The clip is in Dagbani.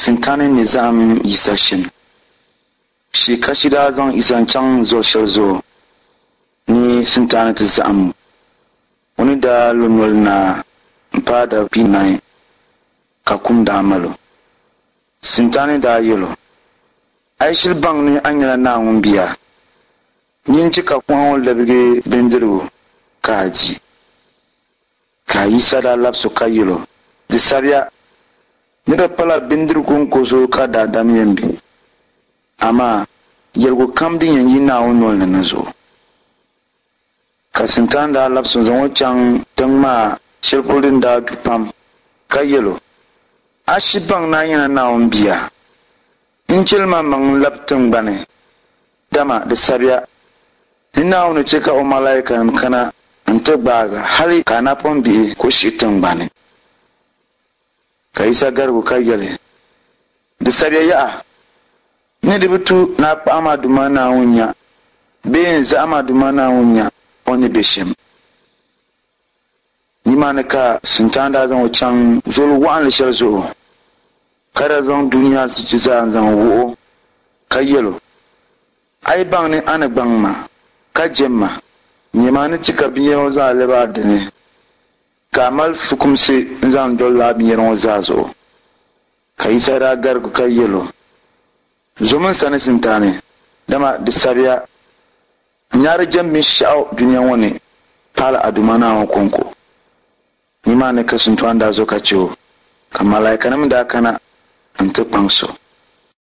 Sintani ni zahim Yisa shɛm. Shii Kashi daa zaŋ Yisa n-chaŋ zol shɛli zuɣu ni Sintani ti zahim o. O ni daa lo noli naai m-paai dabinahi ka kum daa mal o. Sintani daa yɛl o, A yi shiri baŋ ni a nyɛla Naawuni bia, nyin chɛ ka kuɣa ŋɔ labigi bindirigu ka a di. Ka Yisa daa labis o ka yɛl o, Di sabiya ni di pala bindirigu kɔŋko zuɣu ka daadam yɛn be, amaa yɛligu kam din yɛn yi Naawuni nol ni na zuɣu. Ka Sintani daa labis o n-zaŋ o chaŋ tiŋ maa shɛli polo din daa du pam, ka yɛl o, A shiri baŋ ni a nyɛla Naawuni bia? N-chɛli maŋmaŋ n-lab tiŋgbani, dama di sabiya ni Naawuni chɛ ka o malaikanim kana nti gbaag a hali ka a napɔŋ bihi ku shihi tiŋgbani. Ka Yisa garigi o ka yɛli, Di sabiya yaha, ni di bi tu ni a kpaɣim a Duuma Naawuni nya bee n-zahim a Duuma Naawuni nya o ni be shɛm. Nimaani ka Sintani daa zaŋ o chaŋ zol wɔɣinli shɛli zuɣu, ka daa zaŋ dunia azichi zaa n-zaŋ wuh o, ka yɛl o, A yi baŋ ni a ni gbaŋ ma, ka jɛm ma, nyama a ni chɛ ka binyɛra ŋɔ zaa lɛb a dini, ka a mali fukumsi n-zaŋ doli lala binyɛra ŋɔ zaa zuɣu. Ka Yisa daa garigi ka yɛl o, Zomi n sani Sintani, dama di sabiya, N nya di jɛm binshɛɣu dunia ŋɔ ni pahila a Duuma Naawuni kɔŋko. Nimaani ka Sintani daa zo ka chɛ o, ka malaikanim daa kana nti kpaŋs o.